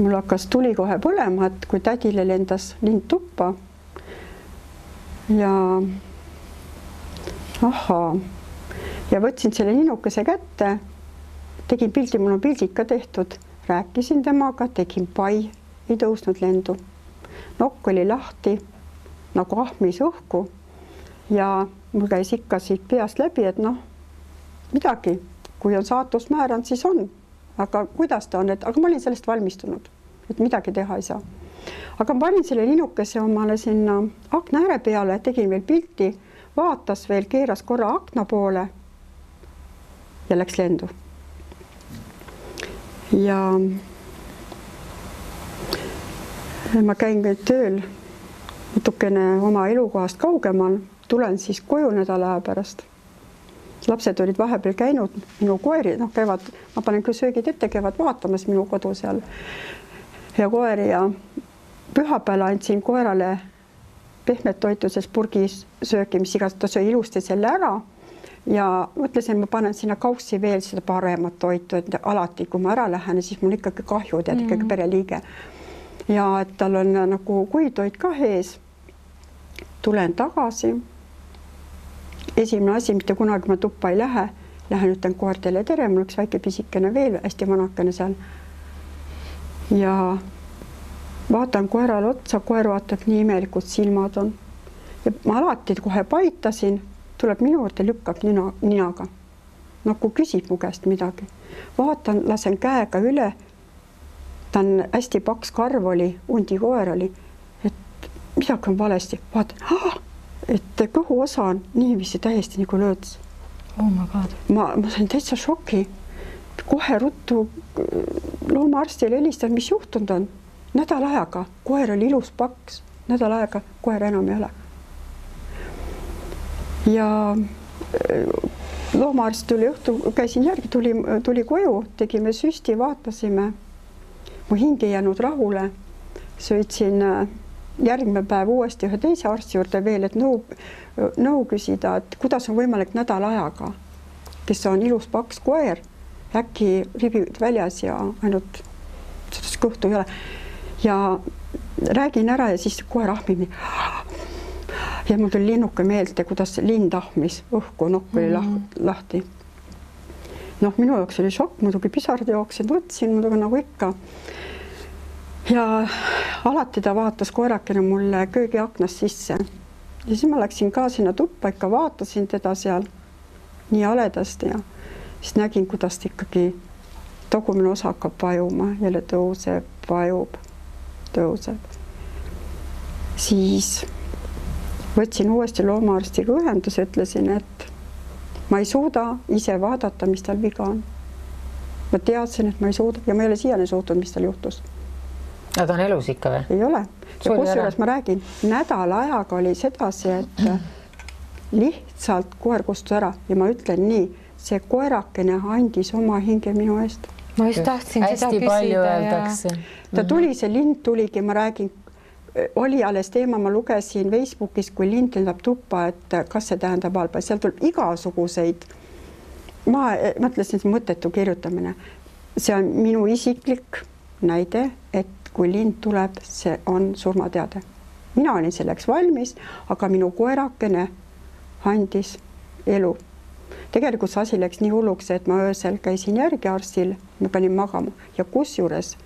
Mul hakkas tuli kohe põlema, et kui tädile lendas lind tuppa ja ja võtsin selle linnukese kätte, tegin pildi, mul on pildid ka tehtud, rääkisin temaga, tegin pai, ei tõusnud lendu. Nokk oli lahti, nagu ahmis õhku. Ja mul käis ikka siit peast läbi, et midagi, kui on saatus määranud, siis on. Aga kuidas ta on, aga ma olin sellest valmistunud, et midagi teha ei saa. aga ma panin selle linnukese omale sinna akna ääre peale, tegin veel pilti, vaatas veel, keeras korra akna poole ja läks lendu. Ja ma käin nüüd tööl natukene oma elukohast kaugemal, tulen siis koju nädala aja pärast. Lapsed olid vahepeal käinud, minu koeri, käivad, ma panen küll söögid ette, käivad vaatamas minu kodu seal ja koeri ja pühapäeval andsin koerale pehmet toituses purgis sööki, mis igas, ta söö ilusti selle ära ja mõtlesin, ma panen sinna kaussi veel seda paremat toitu, et alati, kui ma ära lähen, siis mul ikkagi kahju, tead ikkagi pereliige. Ja et tal on nagu kuivtoit ka ees. Tulen tagasi. Esimene asi, mitte kunagi ma tuppa ei lähe. Lähen ütlen koertele tere, mul üks väike pisikene veel, hästi vanakene seal. Ja vaatan koerale otsa, koer vaatab nii imelikult silmad on. Ja ma alati kohe paitasin, tuleb minu juurde, lükkab ninaga. Nagu küsib mu käest midagi. Vaatan, lasen käega üle. Ta on hästi paks karv oli, undi koer oli, et midagi on valesti. Vaatan, et kõhu osa on niiviisi täiesti nagu lööds. Oh my God. Ma sain täitsa šoki. Kohe ruttu loomaarstile helistan, mis juhtunud on. Nädal ajaga, koer oli ilus paks, nädal ajaga koer enam ei ole. Ja loomaarst tuli õhtu, käisin järgi, tuli koju, tegime süsti, vaatasime. Mu hing ei jäänud rahule, sõitsin järgmine päev uuesti ühe teise arsti juurde veel, et nõu küsida, et kuidas on võimalik nädal ajaga, kes on ilus paks koer, äkki ribid väljas ja ainult seda kõhtu ei ole. Ja räägin ära ja siis koer ahmib nii. Ja mul tuli linnuke meelde, kuidas lind ahmis õhku, nokk oli lahti. Minu jaoks oli šokk, muidugi pisard jooksin, võtsin muidugi nagu ikka. Ja alati ta vaatas koerakene mulle köögi aknast sisse. Ja siis ma läksin ka sinna tuppa, ikka vaatasin teda seal nii aledasti ja siis nägin, kuidas ta ikkagi tagumine osa hakkab vajuma, jälle tõuseb, vajub, tõuseb. Siis võtsin uuesti loomaarstiga ühenduse, ütlesin, et ma ei suuda ise vaadata, mis tal viga on. Ma teadsin, et ma ei suuda ja ma ei ole siiani suutnud, mis tal juhtus. Ja ta on elus ikka või? Ei ole. Ja kusjuures ma räägin, nädal ajaga oli sedasi, et lihtsalt koer kustus ära ja ma ütlen nii, see koerakene andis oma hinge minu eest. Ma just tahtsin seda küsida. Ta tuli, see lind tuligi, ma räägin, oli alles teema, ma lugesin Facebookis, kui lind lendab tuppa, et kas see tähendab halba. Seal tuleb igasuguseid. Ma mõtlesin, see mõttetu kirjutamine. See on minu isiklik näide, et kui lind tuleb, see on surmateade. Mina olin selleks valmis, aga minu koerakene andis elu. Tegelikult see asi läks nii hulluks, et ma öösel käisin järgi arstil, ma panin magama ja kusjuures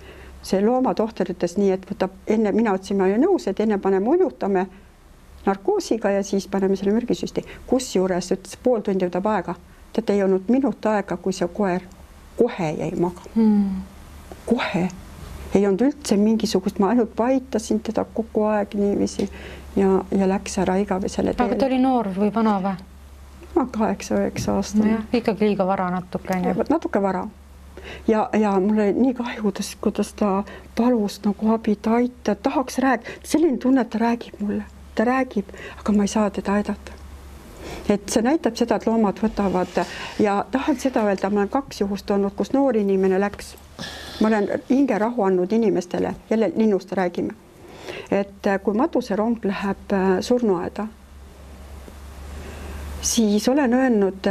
see loomatohter ütles nii, et võtab enne, mina ütlesin, ma olin nõus, et enne paneme unutame narkoosiga ja siis paneme selle mürgisüsti. Kusjuures ütles, pool tundi võtab aega. Tead, ei olnud minut aega, kui see koer kohe jäi magama. Kohe. Ei olnud üldse mingisugust, ma ainult paitasin teda kogu aeg niiviisi ja läks ära igavesele teele. Aga ta oli noor või vana või? 8-9 aastane. No ikkagi liiga vara natuke. Natuke vara. Ja mul oli nii kahju, kuidas ta palus nagu abi, ta aitab, tahaks rääkida. Selline tunne, et ta räägib mulle. Ta räägib, aga ma ei saa teda aidata. Et see näitab seda, et loomad võtavad ja tahan seda öelda, ma olen 2 juhust olnud, kus noor inimene läks. Ma olen hinge rahu andnud inimestele, jälle linnust räägime. Et kui matuserong läheb surnuaeda, siis olen öelnud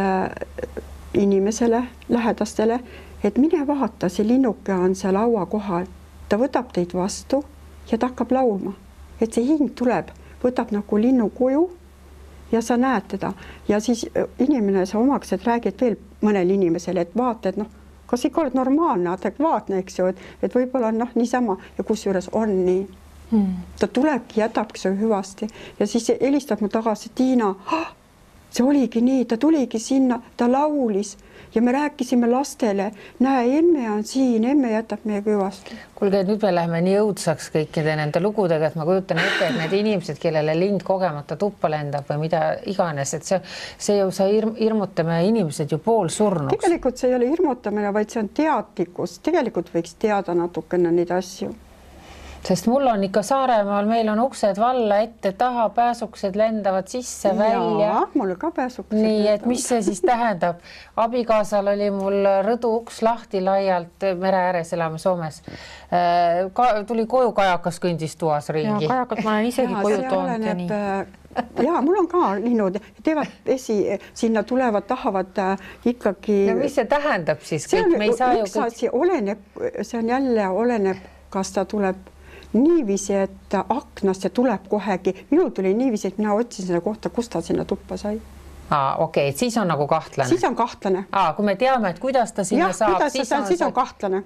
inimesele, lähedastele, et mine vaata, see linnuke on seal laua kohal. Ta võtab teid vastu ja ta hakkab laulma. Et see hing tuleb, võtab nagu linnu kuju ja sa näed teda. Ja siis inimene sa omaksed räägid veel mõnele inimesele, et vaata, et kas ikka oled normaalne, adekvaatne, eks ju, et võib-olla on niisama ja kusjuures on nii. Ta tulebki, jätabki see hüvasti ja siis helistab mu tagasi, Tiina, see oligi nii, ta tuligi sinna, ta laulis ja me rääkisime lastele, näe, emme on siin, emme jätab meie küvast. Kuulge, nüüd me läheme nii õudsaks kõikide nende lugudega, et ma kujutan ette, et need inimesed, kellele lind kogemata tuppa lendab või mida iganes, et see ju sa hirmutame inimesed ju poolsurnuks. Tegelikult see ei ole hirmutamine, vaid see on teadlikkus. Tegelikult võiks teada natukene neid asju. Sest mul on ikka Saaremaal, meil on uksed valla ette, taha, pääsuksed lendavad sisse, välja. Jaa, mul ka pääsuksed. Nii, et mis see siis tähendab? Abikaasal oli mul rõdu uks lahti laialt, mere ääres elame Soomes. Tuli koju kajakas kõndis tuas ringi. Ja kajakat ma olen isegi koju toonud ja nii. Jaa, mul on ka linnud, teevad vesi, sinna tulevad, tahavad ikkagi... No mis see tähendab siis? See on jälle oleneb, kas ta tuleb niiviisi, et aknast ja tuleb kohegi. Minul tuli niiviisi, et mina otsin seda kohta, kus ta sinna tuppa sai. Okei, et siis on nagu kahtlane. Siis on kahtlane. Kui me teame, et kuidas ta sinna saab, siis on kahtlane.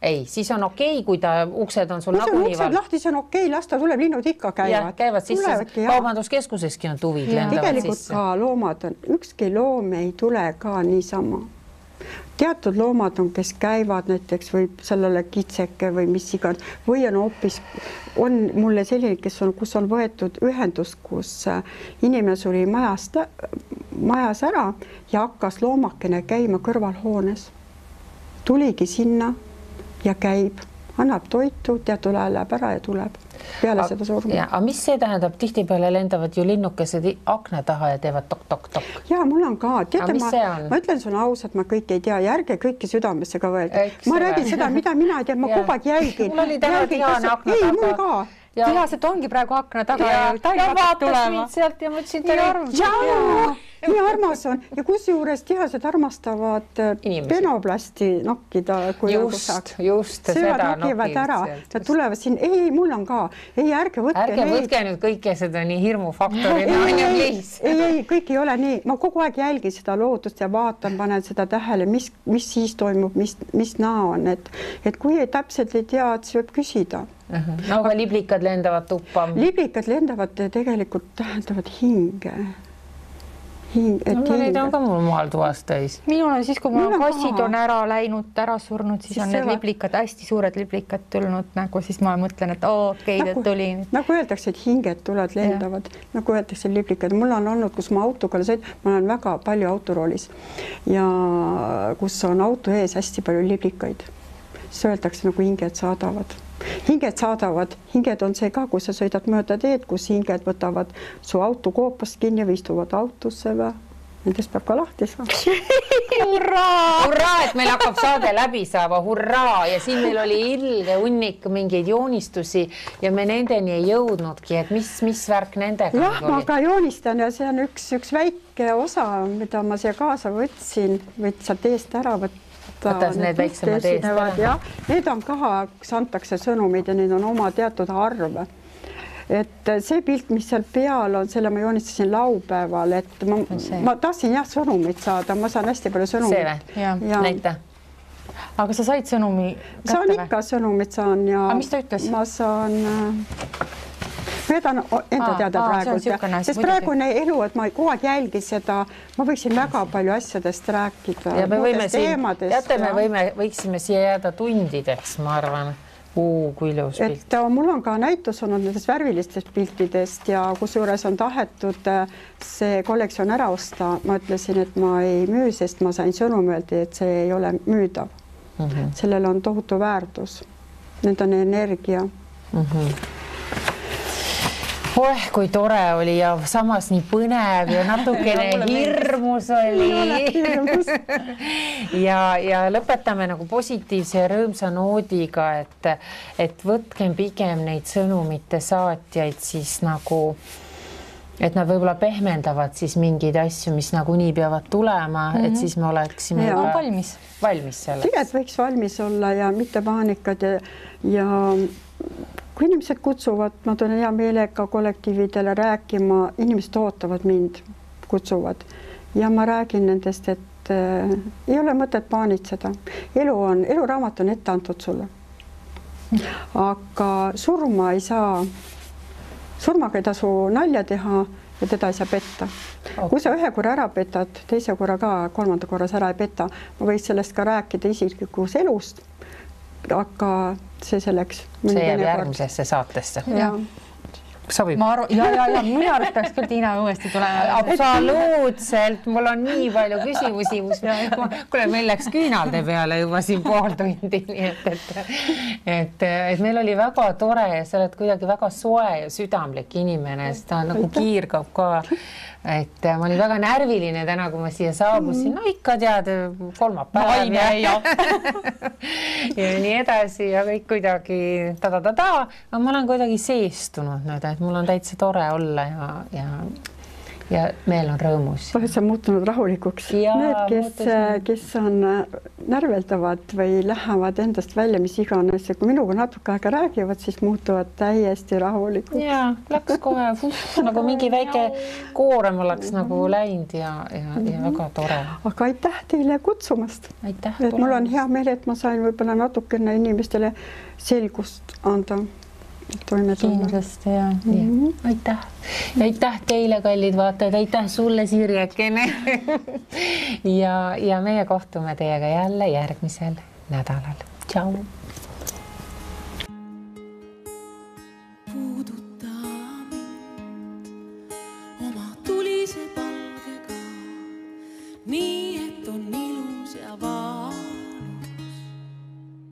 Ei, siis on okei, kui ta uksed on sul nagu nii val. Lahti, see on okei, las ta tuleb, linnud ikka käivad. Käivad sisse, kaubanduskeskuseski on tuvid lendavad tegelikult sisse. Ka loomad on, ükski loom ei tule ka niisama. Teatud loomad on, kes käivad näiteks või sellele kitseke või mis igan, või on hoopis, on mulle selline, kus on võetud ühendus, kus inimene suri majas ära ja hakkas loomakene käima kõrvalhoones. Tuligi sinna ja käib, annab toitu, teatud ajal läheb ära ja tuleb peale seda surma. Aga mis see tähendab? Tihtipeale lendavad ju linnukesed akna taha ja teevad tok-tok-tok. Jaa, mul on ka. Ma ütlen sulle ausalt, ma kõike ei tea ja ärge kõike südamesse ka võelda. Ma räägin seda, mida mina ei tea, ma kogu aeg jälgin. Mul oli täna Diana akna taga. Ei, mul ka. Tihased ongi praegu akna taga ja vaatas mind sealt ja mõtlesin, nii armas on ja kusjuures tihased armastavad penoplasti nokkida. Just seda nokivad ära. Nad tulevad siin, ei, mul on ka. Ei, ärge võtke nüüd kõike seda nii hirmufaktorina. Ei, kõik ei ole nii. Ma kogu aeg jälgin seda loodust ja vaatan, panen seda tähele, mis siis toimub, mis näo on. Et kui ei täpselt ei tea, et see võib küsida. Aga liblikad lendavad tuppa? Liblikad lendavad tegelikult tähendavad hinge. Neid on ka mul maal toas täis. Minul on siis, kui mul kassid on ära läinud, ära surnud, siis on need liblikad, hästi suured liblikad tulnud, nagu siis ma mõtlen, et okei, ta tuli. Nagu öeldakse, et hinged tulevad, lendavad, nagu öeldakse liblikad. Mul on olnud, kus ma autoga ma olen väga palju autoroolis ja kus on auto ees hästi palju liblikaid. Siis öeldakse, nagu hinged saadavad. Hinged on see ka, kui sa sõidad mööda teed, kus hinged võtavad su auto koopast kinni või istuvad autosse või. Nendest peab ka lahti saama. Hurraa, et meil hakkab saade läbi saama, hurraa. Ja siin meil oli ilge hunnik mingeid joonistusi ja me nendeni ei jõudnudki, et mis värk nendega oli? Jah, ma ka joonistan ja see on üks väike osa, mida ma siia kaasa võtsin, võid sealt eest ära võtta. Võtas need väiksemad eest ära. Need on ka, kus antakse sõnumid ja need on oma teatud arv. Et see pilt, mis seal peal on, selle ma joonistasin laupäeval, et ma tahtsin sõnumit saada, ma saan hästi palju sõnumit. See või? Näita. Aga sa said sõnumi kätte või? Saan ikka sõnumit saan ja mis ta ütles? Ma saan... Veedan enda teada praegu, sest praegune elu, et ma kogu aeg jälgin seda, ma võiksin väga palju asjadest rääkida. Ja me võiksime siia jääda tundideks, ma arvan. Kui ilus pilt. Et mul on ka näitus olnud nendest värvilistest piltidest ja kusjuures on tahetud see kollektsioon ära osta. Ma ütlesin, et ma ei müü, sest ma sain sõnum öelda, et see ei ole müüdav. Sellel on tohutu väärtus. Need on energia. Kui tore oli ja samas nii põnev ja natukene hirmus oli. Ja lõpetame nagu positiivse ja rõõmsa noodiga, et võtkem pigem neid sõnumite saatjaid siis nagu, et nad võib-olla pehmendavad siis mingeid asju, mis nagu nii peavad tulema, et siis me oleksime valmis selleks. Tegelikult võiks valmis olla ja mitte paanikad ja kui inimesed kutsuvad, ma tulen hea meelega kollektiividele rääkima, inimesed ootavad mind, kutsuvad ja ma räägin nendest, et ei ole mõtet paanitseda. Eluraamat on ette antud sulle. Aga surmaga ei tasu nalja teha ja teda ei saa petta. Kui sa ühe korra ära petad, teise korra ka, kolmanda korras ära ei peta, ma võiks sellest ka rääkida isiklikus elust, aga see selleks. See jääb järgmisesse saatesse. Sobib. Minu arust peaks küll Tiina uuesti tulema. Absoluutselt, mul on nii palju küsimusi, kuule, meil läks küünalde peale juba siin pool tundi, nii et meil oli väga tore ja sa oled kuidagi väga soe ja südamlik inimene, sest ta nagu kiirgab ka. Et ma olin väga närviline täna, kui ma siia saabusin, no ikka tead, kolmapäev ja nii edasi ja kõik kuidagi aga ma olen kuidagi seestunud nüüd, et mul on täitsa tore olla ja meel on rõõmus. Oled sa muutunud rahulikuks? Need, kes on närveldavad või lähevad endast välja, mis iganes, ja kui minuga natuke aega räägivad, siis muutuvad täiesti rahulikuks. Ja, läks kohe nagu mingi väike koorem oleks nagu läinud ja väga tore. Aga aitäh teile kutsumast. Aitäh. Et mul on hea meel, et ma sain võib-olla natukene inimestele selgust anda. Kindlasti ja. Aitäh. Ja aitäh teile, kallid vaatajad, aitäh sulle, Sirjekene. ja meie kohtume teiega jälle järgmisel nädalal. Tšau.